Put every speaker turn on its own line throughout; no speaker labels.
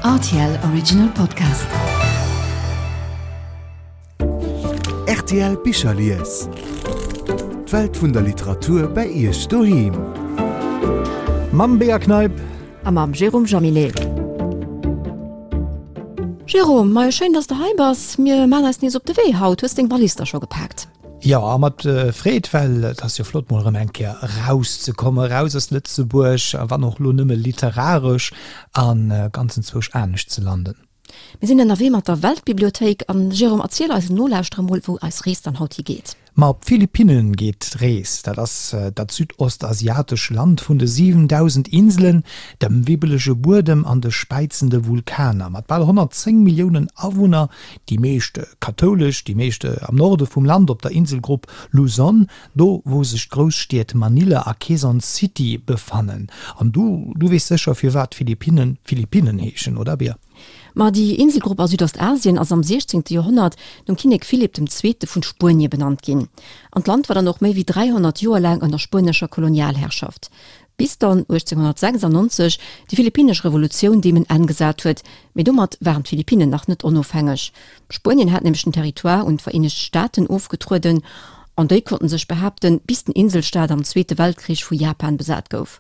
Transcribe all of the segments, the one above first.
Rtl Original Podcast.
Rtl Bicherlies. D'Welt vun der Literatur bei Iech doheem.
Mam Bea Kneip.
A mam Jérôme Jaminet. Jérôme, majo schéin dass de hei bass. Mir maan eis nees op de Wee haut. Hues deng Wallis da scho gepaakt?
Jo, a mat Freed, well et ass jo flott mol erëm eng Kéier erauszekommen, eraus aus Lëtzebuerg, a wann och elo nëmme literaresch, a ganz enzwousch anescht ze landen.
Mir sinn ënnerwee mat der Weltbibliothéik. An Jérôme, erziel eisen Nolauschterer mol, wou eis Rees dann haut higeet.
Ma op d'Philippinnen geet d'Rees. Dat ass dat südostasiatesch Land vun de 7.000 Inselen, dem wibbelege Buedem an de späizende Vulkaner. Mat bal 110 Milliounen Awunner Déi meescht kathoulesch, déi meescht am Norde vum Land op der Inselgrupp Luzon, do wou sech d'Grousstied Manila a Quezon City befannen. An du, du weess sécher firwat d'Philippinnen Philippinnen heeschen, oder Bea?
Ma déi Inselgrupp a Südostasien ass am 16. Joerhonnert nom Kinnek Philipp dem Zweete vun Spuenie benannt ginn. An d'Land war dann och méi wéi 300 Joer laang ënner spuenescher Kolonialherrschaft. Bis dann 1896 déi philippinnesch Revolutioun deem en Enn gesat huet, mee domat waren d'Philippinnen nach net onofhängeg. Spuenien hat nämlech den Territoire un d'Vereenegt Staaten ofgetrueden an déi konnten sech behaapten, bis den Inselstaat am Zweete Weltkrich vu Japan besat gouf.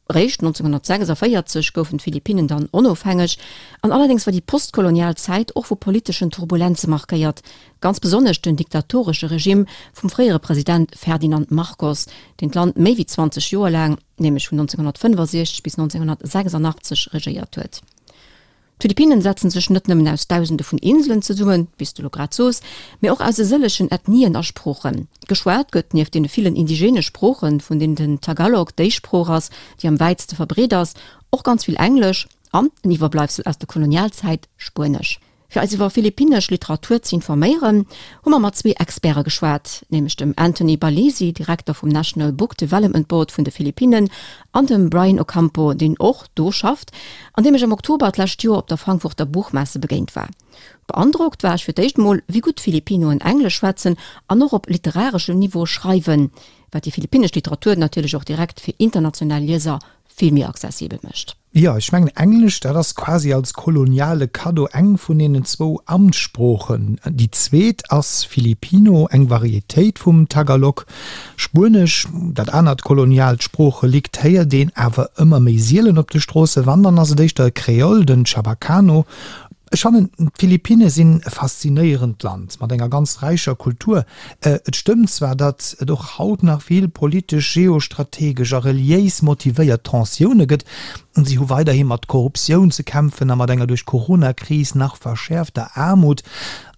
Réischt 1946 goufen d'Philippinnen dann onofhängeg an allerdéngs war déi postkolonial Zäit och vu politeschen Turbulenze markéiert, Ganz besonnesch den diktatoresche Regimm vum fréiere President Ferdinand Marcos, deen d'Land méi wéi 20 Joer laang, nämlech vun 1965 bis 1986 regéiert huet. D'Philippinnen setzen sech net nëmmen aus Dausende vun Inselen zesummen, wéi s de lo grad sos, mee och aus e sëllegen Ethnien a Sproochen. Geschwat gëtt nieft deene villen indigene Sproochen, vun deenen den Tagalog déi Sprooch ass, déi am wäitste verbreet ass, och ganz vill Englesch an, en Iwwerbleibsel aus der Kolonialzäit, Spuenesch. Fir eis iwwer philippinnesch Literatur ze informéieren, hu mer mat zwee Experte geschwat, nämlech dem Anthony Balisi, Direkter vum National Book Development Board vun de Philippinnen, an dem Brian Ocampo, deen och do schafft an deem ech am Oktober d'lescht Joer op der Frankfurter Buchmesse begéint war. Beandrockt war ech fir d'éischt mol, wéi gutt d'Filippinoen Englesch schwätzen an och op literareschem Niveau schreiwen, wat déi philippinnesch Literatur natierlech och direkt fir international Lieser vill méi accessibel mécht.
Jo, ech mengen Englesch, dat ass quasi als koloniale Kaddo eng vun deenen zwou Amtssproochen. Déi zweet ass Filipino, eng Varietéit vum Tagalog. Spuenesch, dat anert koloniaalt Sproocherelikt, héiert een awer ëmmer méi sielen op de Stroossen. Wann, dann ass et éischter e Kreol, den Chabacano. Ech fannen, d'Philippinne sinn e faszinéierend Land mat enger ganz räicher Kultur. Et stëmmt zwar, datt et och haut nach vill politesch, geostrategesch a reliéis motivéiert Tensioune gëtt. Si hu weiderhi mat Korruptioun ze kämpfen a mat enger duerch d'Corona-Kris nach verschäerfter Aarmut.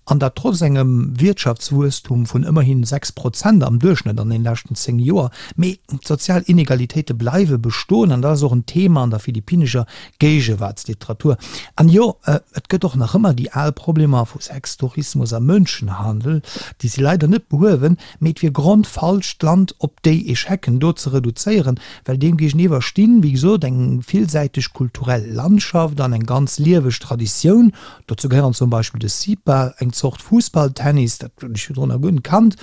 An dat trotz engem Wiertschaftswuesstum vun ëmmerhin 6 Prozent am Duerchschnëtt an den leschten 10 Joer. Mee d'sozial Inegalitéite bleiwe bestoen an dat ass och en Thema an der philippinnescher Géigewaartsliteratur. An jo, et gëtt och nach ëmmer déi al Problemer vu Sextourismus a Mënschenhandel, déi si leider net behuewen, mee et wier grondfalsch, d'Land op déi Echecken do ze reduzéieren, well deem géigeniwwer stinn, wéi gesot, eng villsäiteg kulturell Landschaft an eng ganz lieweg Traditioun. Dozou gehéieren zum Beispill de Sipa, eng Zort Fussballtennis, dat hunn ech virdrun nach guer net kannt,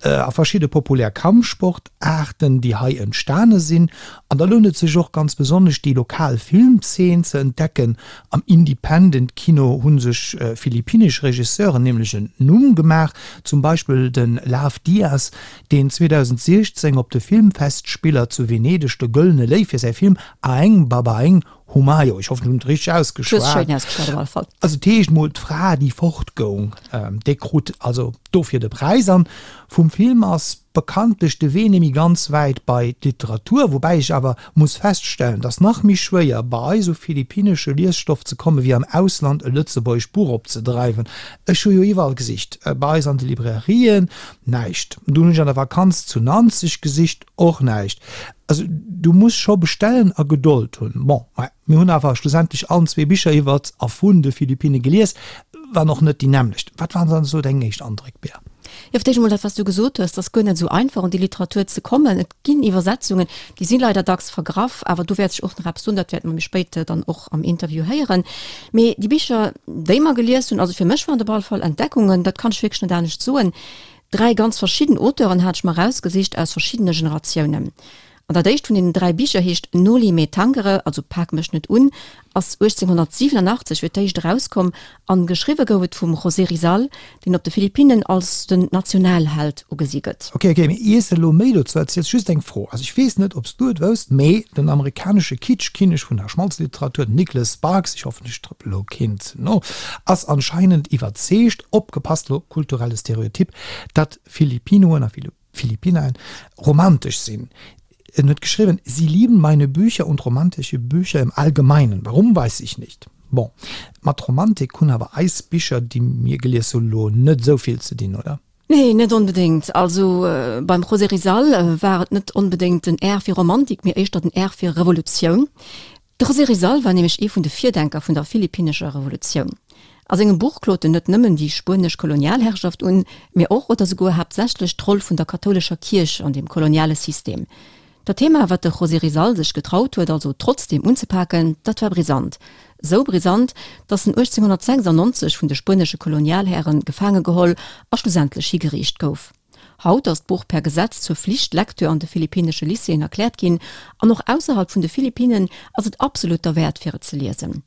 a verschidde populär Kampfsportaarten, déi hei entstane sinn. An da lount et sech och ganz besonnesch, déi lokal Filmzeen ze entdecken. Am Independent-Kino hu sech philippinnesch Regisseuren nämlech en Numm gemaach, zum Beispill de Lav Diaz, deen 2016 op de Filmfestspiller zu Venedeg de Gëllene Léiw fir säi Film Aeng Babaeng Humayo, ech hoffen, ech hunn et richteg ausgeschwat. Also et heescht mol d'Fra, déi fortgoung, déi krut also dofir de Präis. An vum Film ass bekanntlech de Wee némmi ganz wäit bei d'Literatur, woubäi ech awer muss feststellen, dass nach méi schwéier bei eis u philippinnesche Liesstoff ze komme wéi am Ausland e lëtzebuergescht Buch opzedreiwen. Ech hu jo iwwerall gesicht, bei eis an de Librairien, näischt. Dunn hunn ech an der Vakanz zu Nanzeg gesicht, och näischt. Also du muss scho bestellen a Gedold hunn. Bon, mä mir hunn awer schlussendlech allen zwee Bicher iwwert a vun de Philippinne gelies, wann och net déi nämmlecht. Wat waren dann esou deng éischt Andréck, Bea?
Jo, fir d'éischt emol dat, wat s du gesot hues, 't ass guer net esou einfach un déi Literatur ze kommen. Et ginn Iwwersetzungen, déi si leider dacks vergraff, awer do wäert sech och nach eppes doen, dat wäerte mer méi spéit dann och am Interview héieren. Mee déi Bicher, déi mer gelies hunn, also fir mech waren et op alle Fall Entdeckungen, dat kann ech wierklech net anescht soen. Dräi ganz verschidden Auteuren hat ech mer erausgesicht aus verschiddene Generatiounen. An dat éischt vun deenen 3 Bicher heescht Noli me tangere, also Pak mech net un, ass 1887 fir d'éischt erauskomm an geschriwwe gouf et vum José Rizal, deen op de Philippinnen als den Nationalheld ugesi gëtt.
Ok, ok, mee iers de elo méi dozou erziels, just eng Fro, also ech weess net ob s du et wousst, mee den amerikanesche Kitschkinnek vun der Schmalzliteratur, den Nicholas Sparks, ech hoffen ech trëppel elo keen ze no, ass anscheinend iwwerzeegt, opgepasst elo, kulturelle Stereotyp, datt Philippinoen a Philippinaen romantesch sinn. En huet geschriwwen, Sie lieben meine Bücher und romantische Bücher im Allgemeinen. Warum, weiß ich nicht. Bon, mat Romantik hunn awer eis Bicher, déi mir gelies hunn, elo net esou vill ze dinn, oder?
Nee, net onbedéngt. Also beim José Rizal war et net onbedéngt den R fir Romantik, mee éischter den R fir Revolutioun. De José Rizal war nämlech ee vun de Virdenker vun der philippinnescher Revolutioun. A sengem Buch klot en net nëmmen déi spuenesch Kolonialherrschaft un, mee och oder souguer haaptsächlech d'Roll vun der kathoulescher Kierch an dem koloniale System. Dat Thema, wat de José Rizal sech getraut huet also trotzdeem unzepaken, dat war brisant. Sou brisant, datt en 1896 vun de spuenesche Kolonialhäre gefaange geholl a schlussendlech higeriicht gouf. Haut ass d'Buch per Gesetz zur Flichtlektür an de philippinnesche Lycéeën erkläert ginn, an och ausserhalb vun de Philippinnen ass et absolut derwäert fir et ze liesen.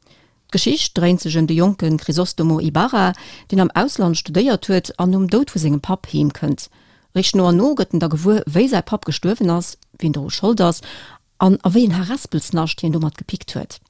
D'Geschicht dréint sech ëm de jonke Crisostomo Ibarra, deen am Ausland studéiert huet an nom Doud vu sengem Papp heem kënnt. Réischt no an no gëtt en da gewuer, wéi säi Papp gestuerwen ass, wien doru Schold ass An a wéi en Harespelsnascht hien domat gepickt huet.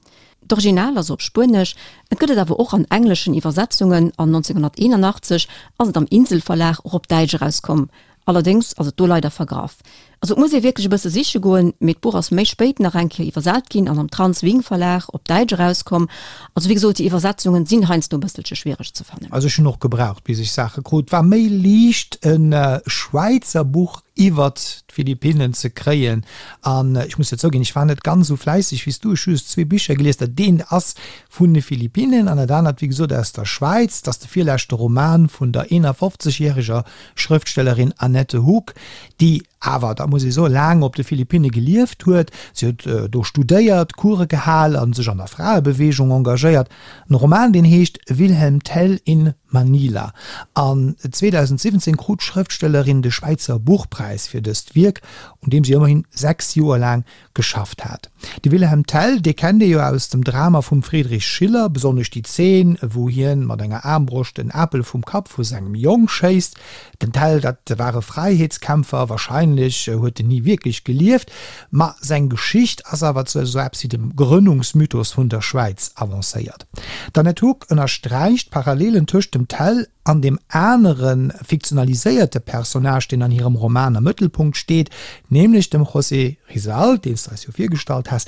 D'Original ass op Spuenesch, et gëtt et awer och an engleschen Iwwersetzungen an 1981 ass et am Insel-Verlag och op Däitsch erauskomm. Allerdéngs ass et do leider vergraff. Also et muss ee wierklech e bësse siche goen, mee d'Buch ass méi spéit nach eng Kéier iwwersat ginn an am Trans Wing Verlag op Däitsch erauskomm. Also wéi gesot, déi Iwwersetzungen sinn heiansdo e bësselche schwiereg ze fannen.
Also ech hunn och gebraucht bis ech Saache krut. War méi liicht e Schwäizer Buch iwwert d'Philippinnen ze kréien. An ech muss jo zouginn, ech war net ganz esou fläisseg wéi s du. Ech hu just zwee Bicher gelies. Dat eent ass vun de Philippinnen an dat anert, wéi gesot, aus der Schwäiz. Dat ass de virleschte Roman vun der 51 järeger Schrëftstellerin Annette Hug, déi awer, dat muss ee soen, laang op de Philippinne gelieft huet. Si huet do studéiert, Course gehal a sech an der Fraebeweegung engagéiert. En Roman, deen heescht Wilhelm Tell in Manila. An 2017 krut d'Schrëftstellerin de Schwäizer Buchpräis fir dëst Wierk, un deem si ëmmerhin 6 Joer laang geschafft hat. De Wilhelm Tell, dee kennt ee jo aus dem Drama vum Friedrich Schiller, besonnesch déi Zeen, wou hien mat enger Aarmbroscht en Apel vum Kapp vu sengem Jong schéisst. Den Tell, dat war e Fräiheetskämpfer, wahrscheinlech huet en ni wierklech gelieft, ma seng Geschicht ass awer zu esou eppes wéi dem Grënnungsmythos vun der Schwäiz avancéiert. D'Annette Hug ënnersträicht d'Parallelen tëscht dem Tell an deem anere fiktionaliséierte Personnage, deen an hirem Roman am Mëttelpunkt steet, nämlech dem José Rizal, deen s de eis jo virgestallt has.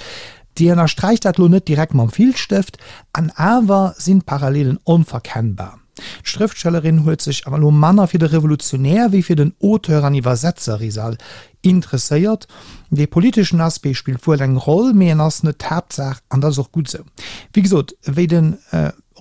Déi ënnersträicht dat lo net direkt mam Filzstëft, an awer sinn d'Parallelen onverkennbar. D'Schrëftstellerin huet sech awer elo manner fir de Revolutionär wéi fir den Auteur an Iwwersetzer Rizal interesséiert. Dee politeschen Aspect spillt wuel eng Roll, mee en ass net d'Haaptsaach an dat ass och gutt esou. Wéi gesot, wéi de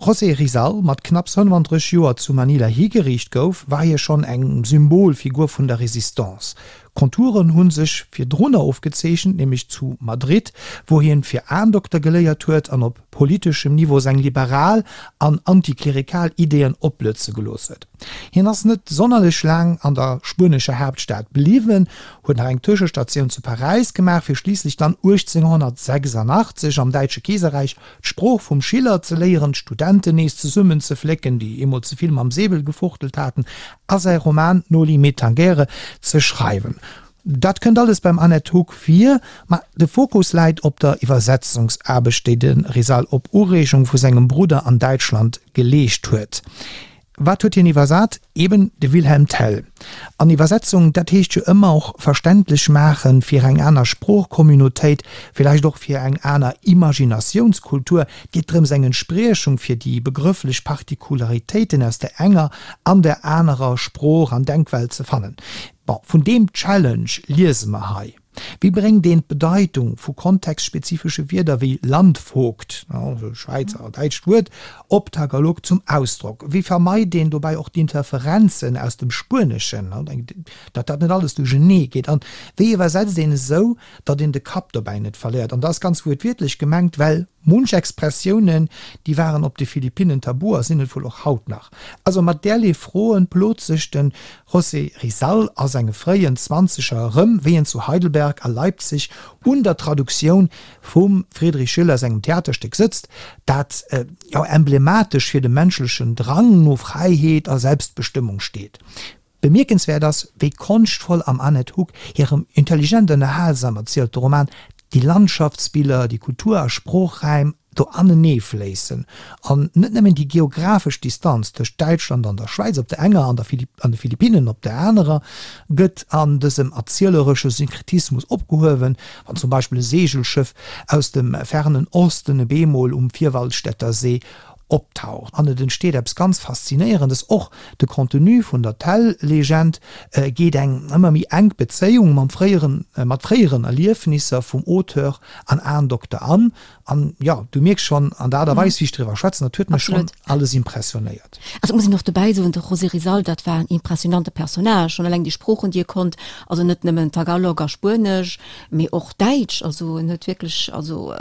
José Rizal mat knapps 35 Joer zu Manila higeriicht gouf, war hie schonn eng Symbolfigur vun der Resistance. Konturen hu sech virdrunner ofgezeechent, nämlech zu Madrid, wou hien fir Aendokter geléiert huet an op politeschem Niveau seng liberal an antiklerikal Ideeën opblëtze gelooss huet. Hien ass net sonnerlech laang an der spuenescher Haaptstad bliwwen, huet nach eng Tëschestatioun zu Paräis gemaach, fir schliisslech dann 1886 am Däitsche Keeserräich d'Sprooch vum Schiller ze léieren, d'Studenten nees zesummenzeflécken, déi eemol ze vill mam Säbel gefuchtelt haten, a säi Roman Noli me tangere ze schreiwen. Dat kënnt alles beim Annette Hug vir, ma de Fokus läit op der Iwwersetzungsaarbecht, déi de Rizal op Ureegung vu sengem Brudder an Däitschland geleescht huet. Wat huet hien iwwersat? Eben de Wilhelm Tell. An Iwwersetzung, dat heescht jo ëmmer och verständlech maache fir eng aner Sproochcommunautéit, villäicht och fir eng aner Imaginatiounskultur. Et geet drëms, eng Entspriechung fir déi begrëfflech Particularitéiten aus der enger an der anerer Sprooch an Denkwelt ze fannen. Bon, vun deem Challenge liese mer hei. Wéi bréngt een d'Bedeitung vu kontextspezifesche Wierder wéi Landvogt, also Schwäizer a däitscht Wuert, op Tagalog zum Ausdrock? Wéi vermeit een dobäi och d'Interferenzen aus dem Spueneschen, datt dat net alles duerchenee geet? An wéi iwwersetzt een esou, datt een de Kapp dobäi net verléiert? An dat ass ganz wuertwiertlech gemengt, well munch Expressiounen, déi waren op de Philippinnen tabu a sinn et wuel och haut nach. Also mat därlee Froen plot sech de José Rizal a senge fréien Zwanzeger erëm, wéi en zu Heidelberg. Bamberg a Leipzig un der Traduktioun vum Friedrich Schiller sengem Theaterstéck sëtzt, dat jo emblematesch fir de menschlechen Drang no Fräiheet a Selbstbestëmmung steet. Bemierkenswäert ass, wéi konschtvoll am Annette Hug hirem intelligent ënnerhalsam erzielte Roman déi Landschaftsbiller, déi Kultur a Sproochräim do anenee fléissen an net nëmmen déi geographesch Distanz tëscht Däitschland an der Schwäiz op der enger an der an de Philippinnen op der anerer gëtt an dësem erzieleresche Synkretismus opgehuewen, wann zum Beispill e Seegelschëff aus dem fernen Osten e beemol um Vierwaldstättersee optaucht an et entsteet eppes ganz Faszinéierendes. Och de Contenu vun der Tell-Legend geet eng ëmmer méi enk Bezéiung mam fréieren, mat fréieren Erliefnisser vum Auteur an Ahndokter an. An jo, du mierks schonn an der Aart a Weis, wéi ech driwwer schwätzen, dat huet mech schonn alles impressionéiert.
Also et muss een och dobäi soen, de José Rizal, dat war en impressionante Personnage, schonn eleng déi Sproochen, déi e konnt, also net nëmmen Tagalog a Spuenesch, mee och Däitsch, also en huet wierklech also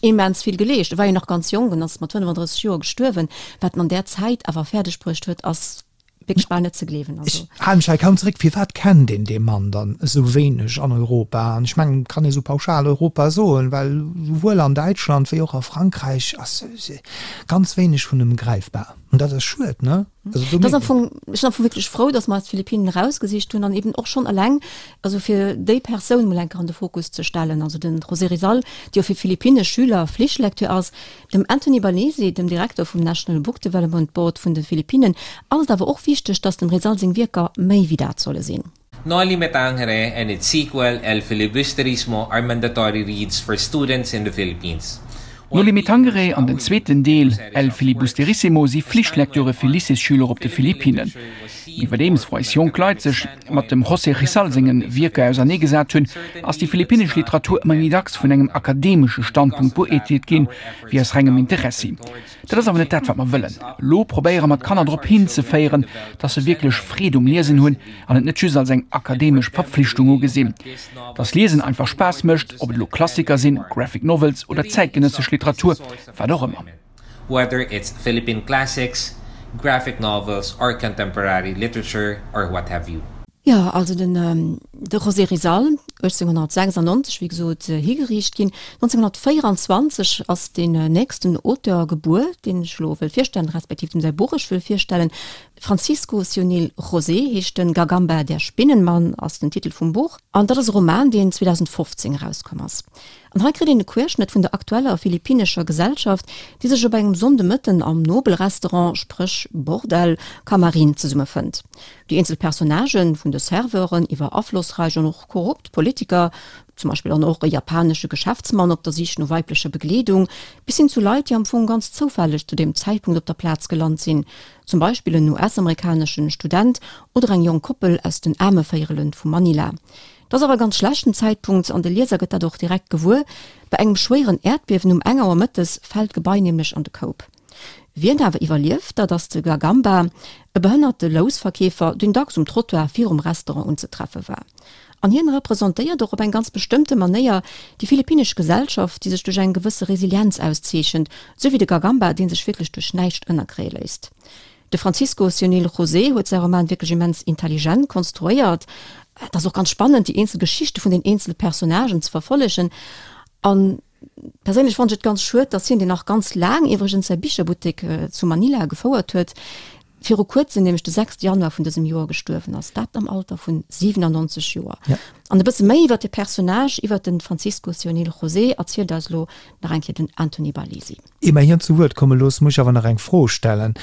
immens vill geleescht. E war jo nach ganz jonk, en ass mat 35 Joer gestuerwen. Wat en an där Zäit awer fäerdeg bruecht huet, ass wierklech bal net ze gleewen.
Also. Ech hale mech hei kaum zeréck. Firwat kennt een dee Mann dann esou wéineg an Europa? An ech mengen, et kann ee sou pauschal Europa soen, well souwuel an Däitschland wéi och a Frankräich ass ganz wéineg vun em gräifbar. An dat ass schued, ne?
Also do Das am Fong, ech sinn am Fong wierklech frou, dass mer eis d'Philippinen erausgesicht hunn an eben och schonn eleng, also fir déi Persoun mol eng Kéier an de Fokus ze stellen, also den José Rizal, dee jo fir philippinnesch Schüler Flichtlecteur ass. Dem Anthony Balesi, dem Direkter vum National Book Development Board vun de Philippinen, ass et awer och wichteg, dass dem Rizal seng Wierker méi wéi dat solle sinn.
Noli Me Tangere and its sequel El Filibusterismo are mandatory reads for students in the Philippines.
Noli Me Tangere an den zweeten Deel El Filibusterissimo si Flichtlektüre fir Lycéesschüler op de Philippinnen. Iwwerdeems wou eis jonk Leit sech mat dem José Rizal senge Wierker auserneegesat hunn, ass déi philippinnesch Literatur ëmmer méi dacks vun engem akademesche Standpunkt beuerteelt ginn, wéi aus rengem Interessi. Dat ass awer net dat, wat mer wëllen. Elo probéiere mer d'Kanner drop hinzeféieren, dass se wierklech Freed um Liesen hunn an et net just als eng akademesch Verpflichtung ugesinn. Dass Liesen einfach Spaass mécht, ob et elo Klassiker sinn, Graphic Novels oder zäitgenëssesch Literatur, wat och ëmmer.
Whether it's Philippine classics, graphic novels or contemporary literature or what have you.
Jo, also den de José Rizal, 1896, wéi gesot, higeriicht ginn. 1924 ass deen nächsten Auteur gebuer, deen ech elo wëll virstellen, respektiv deem säi Buch ech wëll virstellen. Francisco Sionil José heescht en, Gagamba, der Spinnenmann ass den Titel vum Buch. An dat ass e Roman, deen 2015 erauskomm ass. An hei kritt een e Querschnëtt vun der aktueller philippinnescher Gesellschaft, déi sech op engem Sonndemëtten am Nobelrestaurant, spréch Bordell, Camarin zesummefënnt. Déi eenzel Personnagen, vun de Serveuren iwwer aflossräich an och korrupt Politiker, zum Beispill an och e japanesche Geschäftsmann op der Sich no weiblecher Begleedung, bis hin zu Leit, déi am Fong ganz zoufälleg zu deem Zäitpunkt op der Plaz gelant sinn, zum Beispill en US-amerikaneschen Student oder eng jonk Koppel aus den Aarmevéierelen vu Manila. Et ass awer e ganz schlechten Zäitpunkt an de Lieser gëtt dat och direkt gewuer, Bei engem schwéieren Äerdbiewen um eng Auer mëttes fält d'Gebai nämlech an de Koup. Wien awer iwwerlieft, dat ass de Gagamba, e behënnerte Lousverkeefer, deen dacks um Trottoir virum Restaurant unzetreffe war. An hien representéiert och op eng ganz bestëmmte Manéier déi philippinnesch Gesellschaft, déi sech duerch eng gewësse Resilienz auszeechent, sou wéi de Gagamba, dee sech wierklech duerch näischt ënnerkréie léisst. De Francisco Sionil José huet säi Roman wierklech immens intelligent konstruéiert. Et ass och ganz spannend, déi eenzel Geschichte vun den eenzele Personnagen ze verfollegen. An perséinlech fannen ech et ganz schued, dass hien, deen nach ganz laang iwwregens säi Bicherbuttek zu Manila gefouert huet, viru kuerzem, nämlech de 6 Januar vun dësem Joer gestuerwen ass, dat am Alter vun 97 Joer. An e bësse méi iwwer de Personnage, iwwer de Francisco Sionil José erzielt eis elo nach eng Kéier den Anthony Barlesi.
Ier mer hien zu Wuert komme loossen, muss ech awer nach eng Fro stellen.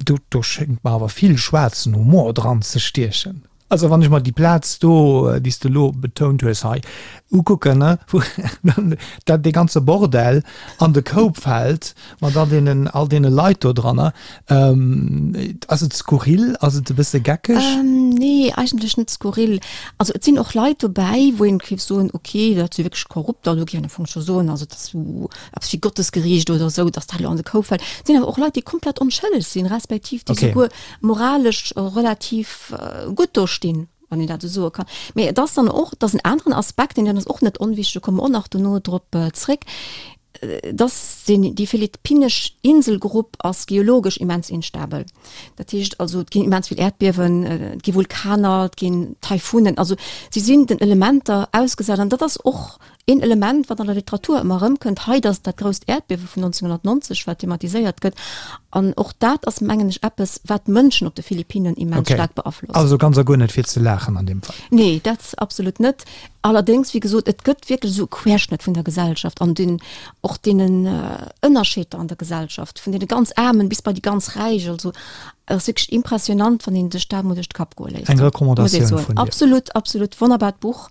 Do, do schéngt mer awer vill schwaarzen Humor dran ze stiechen. Also wann ech mer déi Plaz do, déi s de elo betount hues hei, ukucken, ne, wou dann dat dee ganze Bordell an de Koup fält mat all deenen, all deene Leit do dranner, ass et skurril? Ass et e bësse geckeg?
Nee, eigentlech net skurril. Also et sinn och Leit dobäi, wou een géif soen, okay, dat si wierklech Korrupter, do géif een am Fong scho soen, also dat ass esou eppes wéi Gottesgericht oder esou, datt dat elo an de Koup fält. Et sinn awer och Leit, déi komplett onschëlleg sinn, respektiv déi souguer moralesch relativ gutt do stinn, wann een dat esou soe kann. Mee et ass dann och, et ass en aneren Aspekt, deen ass och net onwichtig, do komme mer och nach dono drop zréck. Dass deen, déi philippinnesch Inselgrupp ass geologesch immens instabel. Dat heescht also, et ginn immens vill Äerdbiewen, et gi Vulkaner, et ginn Taifunen. Also si sinn den Elementer ausgesat an dat ass och een Element, wat an der Literatur ëmmer erëmkënnt. Hei, dat ass dat grousst Äerdbiewe vun 1990, wat thematiséiert gëtt. An och dat ass, mengen ech, eppes, wat d'Mënschen op de Philippinnen immens
Okay.
staark beaflosst.
Also ganz a guer net fir ze laachen an deem Fall.
Nee, dat absolut net. Allerdéngs, wéi gesot, et gëtt wierklech esou e Querschnëtt vun der Gesellschaft an den, och deenen Ënnerscheeder an der Gesellschaft, vun deene ganz Aarmen bis bei déi ganz Räich. Also et ass wierklech impressionant, wann een sech dat emol duerch de Kapp goe léisst,
Eng
muss ee
Recommandatioun
soen.
vun dir.
Absolut, absolut wonnerbart Buch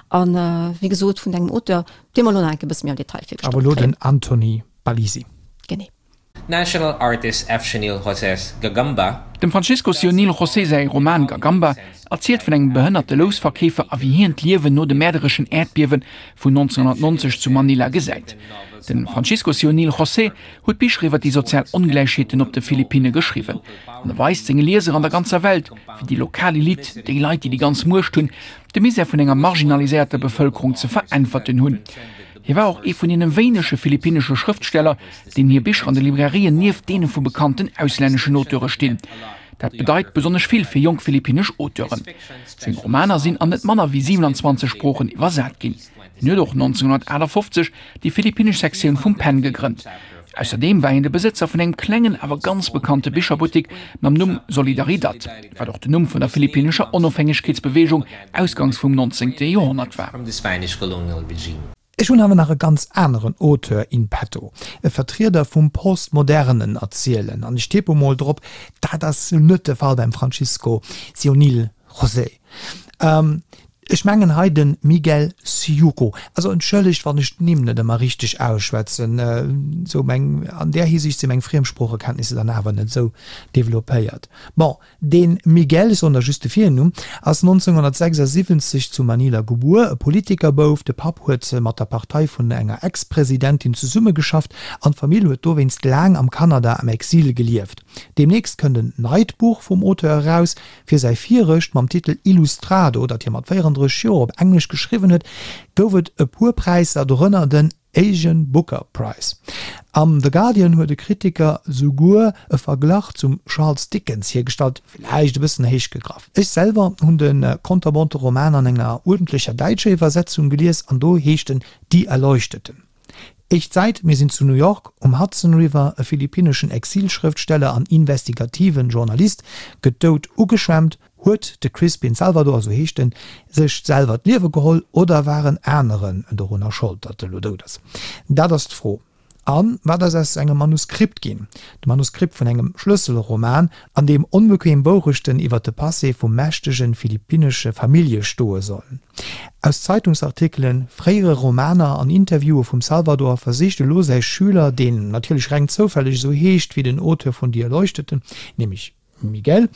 an, wéi gesot, vun engem Auteur, dee mer elo nach eng Kéier e bësse méi am Detail
virgestallt Awer elo
kréien.
den Anthony Balisi.
Genee.
National artist F. Sionil José's Gagamba.
Dem Francisco Sionil José säi Roman Gagamba erzielt vun engem behënnerte Lousverkeefer a wéi hien d'Liewen no de mäerdereschen Äerdbiewe vun 1990 zu Manila gesäit. De Francisco Sionil José huet Bicher iwwer déi sozial Ongläichheeten op de Philippinne geschriwwen an e weist senge Lieser an der ganzer Welt, wéi déi lokal Elite, déi Leit, déi déi ganz Muecht hunn, de Misär vun enger marginaliséierter Bevëlkerung ze veräntwerten hunn. Hie war och ee vun deene wéinege philippinnesche Schrëftsteller, deenen hir Bicher an de Librairien nieft deene vu bekannten auslänneschen Auteure stinn. Dat bedeit besonnesch vill fir jonk philippinnesch Auteuren. Seng Romaner sinn an net manner wéi 27 Sproochen iwwersat ginn. Hien huet och 1958 déi philippinnesch Sektioun vum pen gegrënnt. Ausserdeem war hien de Besëtzer vun engem klengen, awer ganz bekannte Bicherbuttek mam Numm Solidaridad, wat och den Numm vun der philippinnescher Onofhängegkeetsbeweegung ausgangs vum 19. Joerhonnert war.
Ech hunn awer nach e ganz aneren Auteur in petto, e Vertrieder vum postmodernen Erzielen, an ech tippe mol drop, dat ass net de Fall beim Francisco Sionil José. Ech mengen hei de Miguel Syjuco. Also entschëllegt, wann ech d'Nimm net ëmmer richteg ausschwätzen, sou meng, an där Hisiicht si meng Friemsproochekenntnisser dann awer net esou developpéiert. Bon, De Miguel, ech soen der just de Virnumm, ass 1976 zu Manila gebuer, e Politikerbouf. De Papp huet mat der Partei vun enger Ex-Presidentin zesummegeschafft an d'Famill huet dowéinst laang am Kanada am Exil gelieft. Deemnächst kënnt en neit Buch vum Auteur eraus. Fir säi virecht mam Titel Ilustrado, dat hie mat 34 Joer op Englesch geschriwwen huet, gouf et e puer Präisser, dorënner den Asian Booker Prize. Am The Guardian huet e Kritiker souguer e Verglach zum Charles Dickens hiergestallt, villäicht e bëssen héich gegraff. Ech selwer hunn de konterbonte Roman an enger uerdentlecher däitscher Iwwersetzung gelies an do heescht en Die Erleuchteten. Éischt Säit, Mir sinn zu New York um Hudson River, e philippinneschen Exilschrëftsteller an investigativen Journalist gëtt dout ugeschwemmt. Huet de Crispin Salvador, esou heescht en, sech selwer d'Liewe geholl oder waren aneren dorunner Schold, datt e lo dout ass? Dat ass d'Fro. A wat ass aus engem Manuskript ginn? De Manuskript vun engem Schlësselroman, an deem onbequem Wourechten iwwer de Passé vu mächtege philippinnesche Famillje stoe sollen. Aus Zeitungsartikelen, fréiere Romaner an Interviewe vum Salvador versicht elo säi Schüler, deen natierlech reng zoufälleg esou heescht wéi den Auteur vun Die Erleuchteten, nämlech Miguel,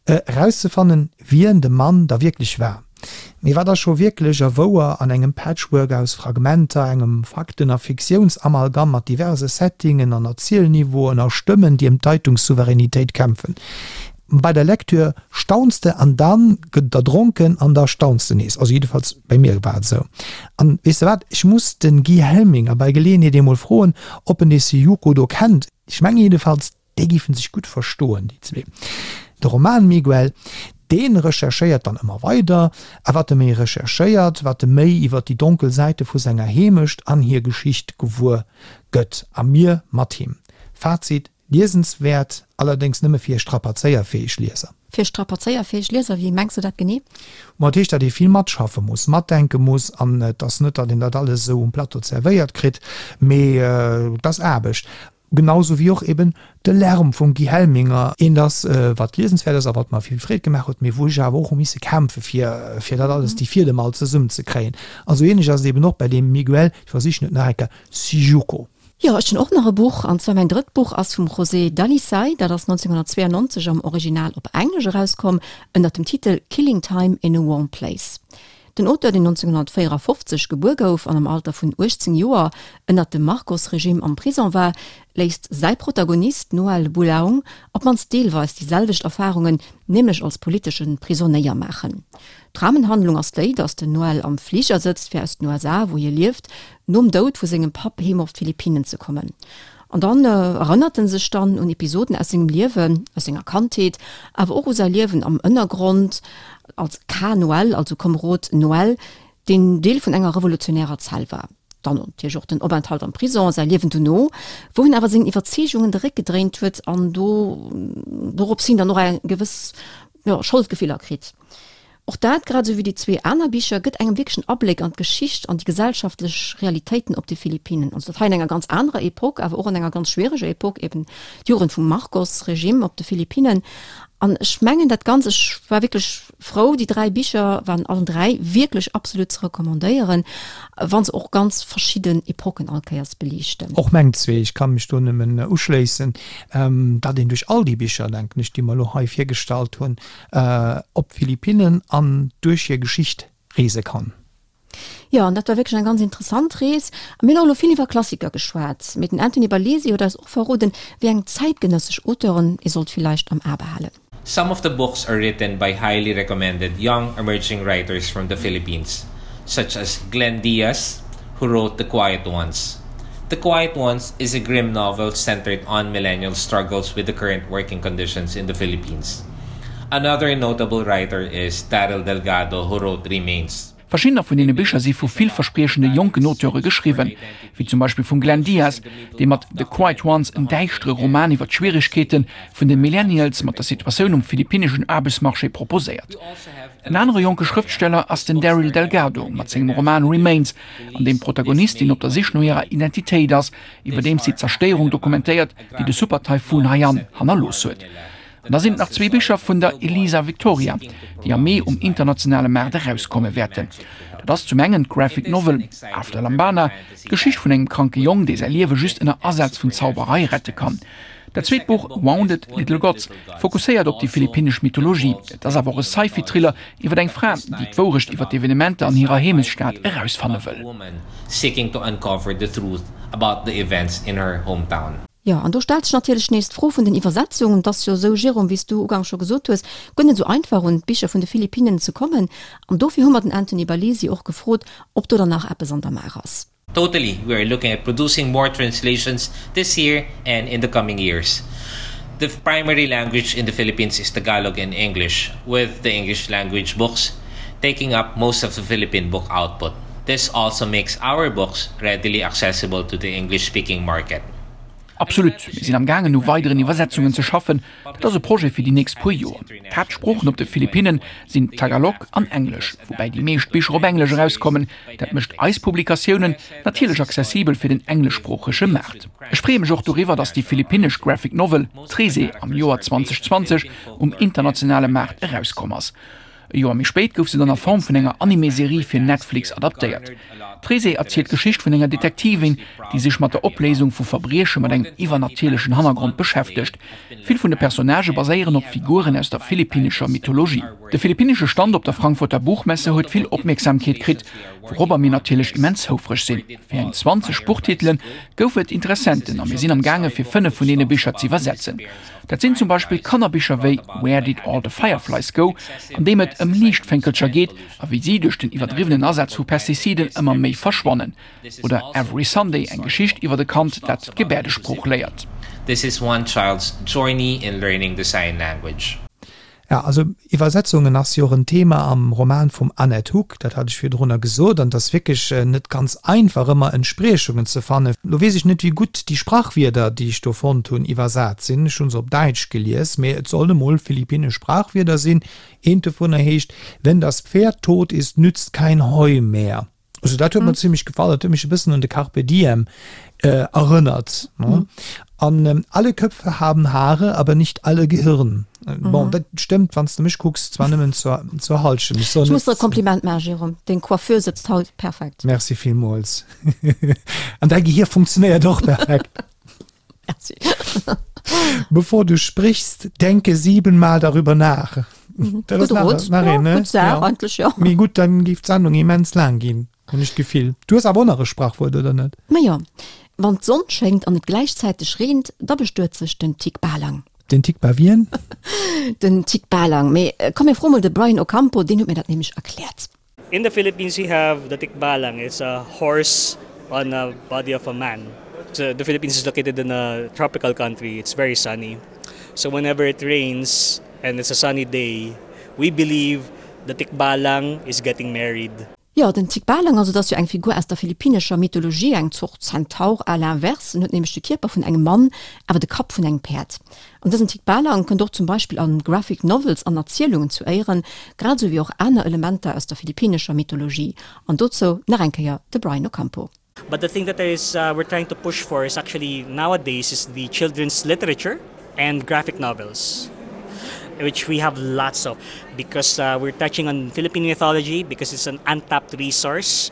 erauszefannen, wien de Mann da wierklech war. Mee wat ass scho wierklech a wouer an engem Patchwork aus Fragmenter, engem Fakten a Fiktiounsamalgam mat diverse Settingen an Erzielniveauen a Stëmmen, déi ëm d'Deitungssouveränitéit kämpfen? Bei der Lektür staunst de an dann gëtt et erdronken an da staunst de nees. Also jiddefalls bei mir war et esou. An weess de wat, ech muss den Guy Helminger bei Geleeënheet eemol froen, ob en dee Syjuco do kennt. Ech menge jiddefalls, Déi géifen sech gutt verstoen, déi zwee. De Roman Miguel, dee recherchéiert dann ëmmer weider, a wat e méi recherchéiert, wat e méi iwwer déi donkel Säite vu senger Heemecht an hir Geschicht gewuer gëtt. A mir mat him. Fazit, Liesenswäert, allerdéngs nëmme fir strapazéierfäeg Lieser.
Fir strapazéierfäeg Lieser, wéi mengs de dat genee?
Ma dat heescht, datt ee vill matschaffe muss, matdenke muss, an et ass net, datt een dat alles esou um Plateau zerwéiert kritt, mee et ass Aarbecht. Genau sou wéi och eben de Lärm vum Guy Helminger, eent ass, wat liesenswäert ass a wat mer vill Freed gemaach huet, mee wou ech awer och hu misse kämpfe fir, fir dat alles, déi Fiedem all zesummenzekréien. A sou ähnlech ass et eben och bei deem Miguel, ech versichen et nach eng Kéier, Syjuco.
Jo, ech hunn och nach e Buch, an zwar mäin drëtt Buch ass vum José Dalisay, dat ass 1992 am Original op Englesch erauskomm, ënnert dem Titel Killing Time in a Warm Place. Den Auteur, deen 1954 gebuer gouf an am Alter vun 18 Joer ënnert dem Marcos-Regime am Prison war, léisst säi Protagonist Noel Bulaong op d'mannst deelweis déi selwecht Erfarungen, nämlech als politesche Prisonéier, maachen. D'Rahmenhandlung ass déi, datt den Noel am Fliger sëtzt, fir aus den USA, wou hie lieft, nom Doud vu sengem Papp heem op d'Philippinen ze kommen. An dann erënnert en sech dann un Episoden aus sengem Liewen, aus senger Kandheet, awer och u säi Liewen am Ënnergrond als Ka Noel, also Komerod Noel, deen Deel vun enger revolutionärer Zell war. Dann natierlech och den Openthalt am Prison, säi Liewen dono, wou en awer sengen Iwwerzeegungen de Réck gedréint huet an do dorops hin dann och eng gewëss, jo, Scholdgefiller kritt. Och dat, grad esou wéi déi zwee aner Bicher, gëtt engem wierklech en Abléck an d'Geschicht an déi gesellschaftlech Realitéiten op de Philippinen. Also dat hei an enger ganz anerer Epoque, awer och an enger ganz schwiereger Epoque, eben d'Jugend vum Marcos-Regime op de Philippinen. An ech mengen dat Ganz, ech war wierklech frou, déi dräi Bicher waren allen dräi wierklech absolut ze recommandéieren, wa se och ganz verschidden Epoquen all Kéiers beliichten.
Och meng zwee, ech ka mech do nëmmen uschléissen, datt een duerch all déi Bicher, denken ech, déi mer elo hei virgestallt hunn, op d'Philippinnen an duerch hir Geschicht reese kann.
Jo, an dat war wierklech eng ganz interessant Rees. A mir hunn och elo vill iwwer Klassiker geschwat, mee den Anthony Barlesi huet eis och verroden, wéi eng zäitgenëssesch Auteuren ee sollt villäicht am A behalen.
Some of the books are written by highly recommended young emerging writers from the Philippines, such as Glenn Diaz, who wrote The Quiet Ones. The Quiet Ones is a grim novel centered on millennial struggles with the current working conditions in the Philippines. Another notable writer is Daryl Delgado who wrote Remains.
Verschiddener vun deene Bicher si vu villverspriechende jonken Auteure geschriwwen, wéi zum Beispill vum Glenn Diaz, dee mat The Quiet Ones en däischtere Roman iwwer d'Schwieregkeete vun de Millennials mat der Situatioun um philippinneschen Aarbechtsmarché proposéiert. En anere jonke Schrëftsteller ass den Daryl Delgado mat sengem Roman Remains, an deem d'Protagonistin op der Sich no hirer Identitéit ass, iwwerdeems si d'Zerstéierung dokumentéiert, déi de Super-Taifun Haiyan hannerlooss huet. An da sinn et nach zwee Bicher vun der Elisa Victoria, déi am Mee um internationale Maart erauskomme wäerten. Dat ass zum engen d'Graphic Novel After Lambana, d'Geschicht vun engem kranke Jong, dee säi Liewe just ënner Asaz vun Zauberei rette kann. Dat zweet Buch Wounded Little Gods fokusséiert op déi philippinnesch Mythologie. Et ass awer och e Sci-Fi-Thriller iwwer eng Fra, déi d'Wourecht iwwer d'Evenementer an hirer Heemechtsstad erausfanne wëll.
Jo, an do stellt sech natierlech nees d'Fro vun den Iwwersetzungen. Et ass jo esou, Jérôme, wéi s du ugangs scho gesot hues, guer net esou einfach un d'Bicher vun de Philippinnen ze kommen. An dofir hu mer den Anthony Barlesi och gefrot, ob do dann nach eppes an der Maach ass.
Totally, we are looking at producing more translations this year and in the coming years. The primary language in the Philippines is Tagalog and English, with the English language books taking up most of the Philippine book output. This also makes our books readily accessible to the English-speaking market.
Absolut, mir sinn am gaangen u weideren Iwwersetzungen ze schaffen. Dat ass e Projet fir déi nächst puer Joer. D'Haaptsproochen op de Philippinnen sinn Tagalog an Englesch, woubäi déi meescht Bicher op Englesch erauskommen. Dat mécht eis Publikatiounen natierlech accessibel fir den engleschsproochege Maart. Ech freeë mech och doriwwer, datt déi philippinnesch Graphic Novel Trese am Joer 2020 um internationale Maart erauskomm ass. E Joer méi spéit gouf se dann a Form vun enger Anime-Serie fir Netflix adaptéiert. D'Trese erzielt d'Geschicht vun enger Detektivin, déi sech mat der Opléisung vu Verbrieche mat engem iwwernatierlechen Hannergrond beschäftegt. Vill vun de Personnagë baséieren op Figuren aus der philippinnescher Mythologie. De philippinnesche Stand op der Frankfurter Buchmesse huet vill Opmierksamkeet kritt, wourobber mir natierlech immens houfreg sinn. Fir eng 20 Buchtitele gouf et Interessenten a mir sinn am gaange fir 5 vun deene Bicher z'iwwersetzen. Dat sinn zum Beispill Kannerbicher wéi Where Did All the Fireflies Go, an deem et ëm Liichtfénkelcher geet a wéi si duerch den iwwerdriwwenen Asaz vu Pestiziden ëmmer méi verschwannen. Oder Every Sunday, eng Geschicht iwwert e Kand, dat d'Gebäerdesprooch léiert.
This is one child's journey in learning the sign language.
Ja, also Iwwersetzungen ass jo och en Thema am Roman vum Annette Huck, dat hat ech virdrunner gesot, an et ass wierklech net ganz einfach ëmmer Entspriechungen ze fannen. Lo weess ech net wéi gutt déi Sprachwierder, déi ech do fonnt hunn, iwwersat sinn. Ech hu se op Däitsch gelies, mee et sollen emol philippinnesch Sprachwierder sinn. Eent dovunner heescht, Wenn das Pferd tot ist, nützt kein Heu mehr. Also dat huet mir zimmlech gefall, dat huet mech e bëssen un de Carpe Diem erënnert. An alle Köpfe haben Haare, aber nicht alle Gehirn. Bon, dat stëmmt, wann s de mech kucks, zwar nëmmen zur, zur Hallschent.
Ech soen Ech muss der e Kompliment maachen, Jérôme, deng Coiffure sëtzt haut perfekt.
Merci villmools. An däi Gehir funktionéiert och perfekt.
Merci.
Bevor du sprichst, denke siebenmal darüber nach. Dat ass nach, nach een, ne?
Gutt Saach eigentlech, jo.
Mee gutt, dann géif d'Sendung immens laang ginn, hunn ech d'Gefill. Du hues awer och nach e Sprachwuert, oder net?
Majo, wann d'Sonn schéngt an et gläichzäiteg reent, da bestuet sech den Tikbalang.
Den Tikba wien?
Den Tikbalang. Mee komm mir froe mol de Brian Ocampo, deen huet mir dat nämlech erkläert.
In the Philippines we have the Tikbalang, it's a horse on a body of a man. So the Philippines is located in a tropical country, it's very sunny. So whenever it rains and it's a sunny day, we believe the Tikbalang is getting married.
Jo, den Tikbalang, also dat ass jo eng Figur aus der philippinescher Mythologie, eng Zort Zentaur à l'inverse. En huet nämlech de Kierper vun engem Mann, awer de Kapp vun engem Päerd. An dësen Tikbalang kënnt och zum Beispill a Graphic Novels an Erzielungen zu Éieren, grad esou wéi och aner Elementer aus der philippinescher Mythologie. An dozou nach eng Kéier de Brian Ocampo.
But the thing that is we're trying to push for is actually nowadays is the children's literature and graphic novels, which we have lots of because we're touching on Philippine mythology because it's an untapped resource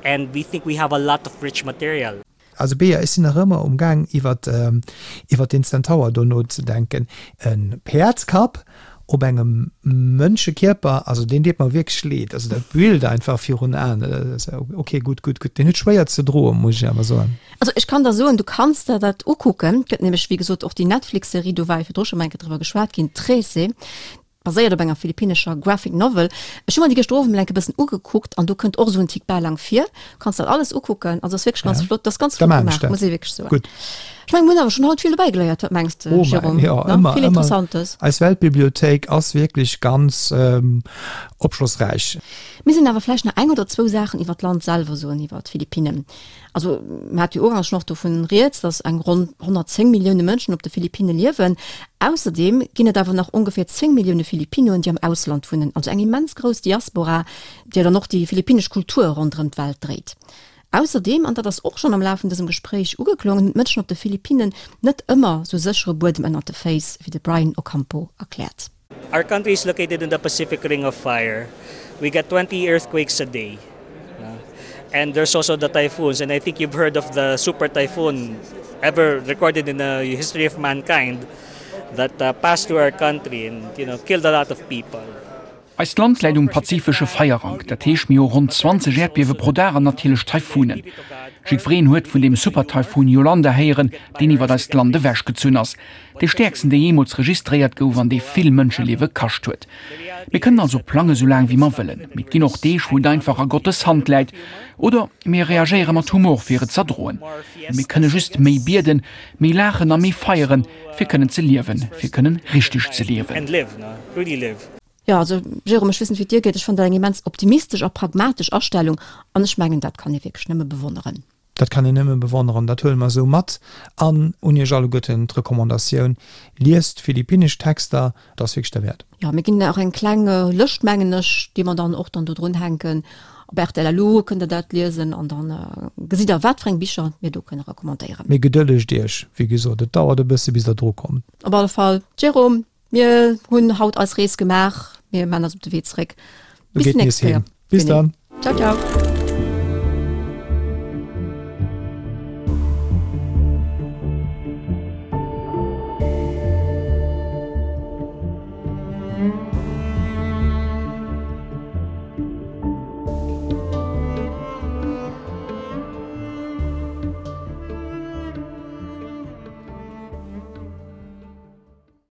and we think we have a lot of rich material.
Also Bea, ech sinn nach ëmmer um Gaang iwwert iwwert deen Zentaur do nozedenken. E Päerdskapp op engem Mënschekierper, also deen deet mer wierklech leed. Also dat Bild einfach virun Aen, ok gutt, gutt, gutt. Deen huet schwéier ze droen, muss ech awer soen.
Also ech kann der soen, du kanns der dat ukucken. Et gëtt nämlech wéi gesot och déi Netflix-Serie, do war jo virdru scho mol eng Kéier driwwer geschwat ginn, Trese. Baséiert op enger philippinnescher Graphic Novel. Ech hu mer déi gëschter Owend mol enke bëssen ugekuckt an do kënnt och esou en Tikbalang vir. Kanns dat alles ukucken, also ass wierklech ganz
Ja.
flott, dat ass ganz
Da
flott
maan ech
gemaach,
dat.
muss ee wierklech soen.
Gutt.
Ech mengen, mir hunn awer schonn haut vill dobäi geléiert, wat mengs de,
Oh mäi,
Jérôme?
jo,
Ne?
ëmmer,
Vill
ëmmer.
Interessantes.
Eis Weltbibliothéik ass wierklech ganz opschlossräich.
Mir sinn awer vläicht nach eng oder zwou Saachen iwwer d'Land selwer soen, iwwer d'Philippinnen. Also mir hate jo ugangs schonn och dovun rieds, datt eng ronn 110 Millioune Mënschen op de Philippinne liewen. Ausserdeem ginn et awer nach ongeféier 10 Millioune Philippinoen, déi am Ausland wunnen, also eng immens grouss Diaspora, déi dann och déi philippinnesch Kultur ronderëm d'Welt dréit. Ausserdeem, an dat ass och schonn am Laf vun dësem Gespréich ugeklongen, hunn d'Mënschen op de Philippinnen net ëmmer sou séchere Buedem ënnert de Féiss, wéi de Brian Ocampo erkläert.
Our country is located in the Pacific Ring of Fire. We get 20 earthquakes a day. And there's also the typhoons and I think you've heard of the super typhoon ever recorded in the history of mankind that uh, passed through our country and you know killed a lot of people.
Eist Land läit um pazifesche Feierrank, dat heescht mir hu ronn 20 Äerdbiewe pro Dag an natierlech Taifunen. Jiddwereen huet vun deem Super-Taifun Yolanda héieren, deen iwwert eist Land ewechgezunn ass. Dee stäerksten, dee jeemools registréiert gouf an dee vill Mënscheliewe kascht huet. Mir kënnen also plange sou laang wéi mer wëllen, mee et ginn och Deeg, wou et einfach a Gottes Hand läit. Oder mir reagéiere mat Humor, fir et z'erdroen. Mir kënne just méi bieden, méi laachen a méi feieren, fir kënnen ze liewen, fir kënnen richteg ze liewen.
Jo, also Jérôme, ech weess net wéi et dir geet, ech fannen dat eng immens optimistesch a pragmatesch Astellung an ech mengen, dat kann ee wierklech nëmme bewonneren.
Dat kann een nëmme bewonneren, dat huele mer esou mat. An un Iech alleguerten d'Recommandatioun, Liest philippinnesch Texter, et ass wierklech derwäert.
Jo, mir ginn och eng kleng Lëscht, mengen ech, déi mer dann och dann do drun hänken. Op rtl LU kënnt Der dat liesen an dann gesitt Der, wat fir eng Bicher mir do kënne recommandéieren.
Mee gedëllegt Iech, wéi gesot, et dauert e bësse bis Der dru kommt.
Op alle Fall, Jérôme, mir hunn haut eis Rees gemaach, mir man eis op de Wee zréck.
Bis déi nächst Kéier. Bis dann.
Ciao, ciao.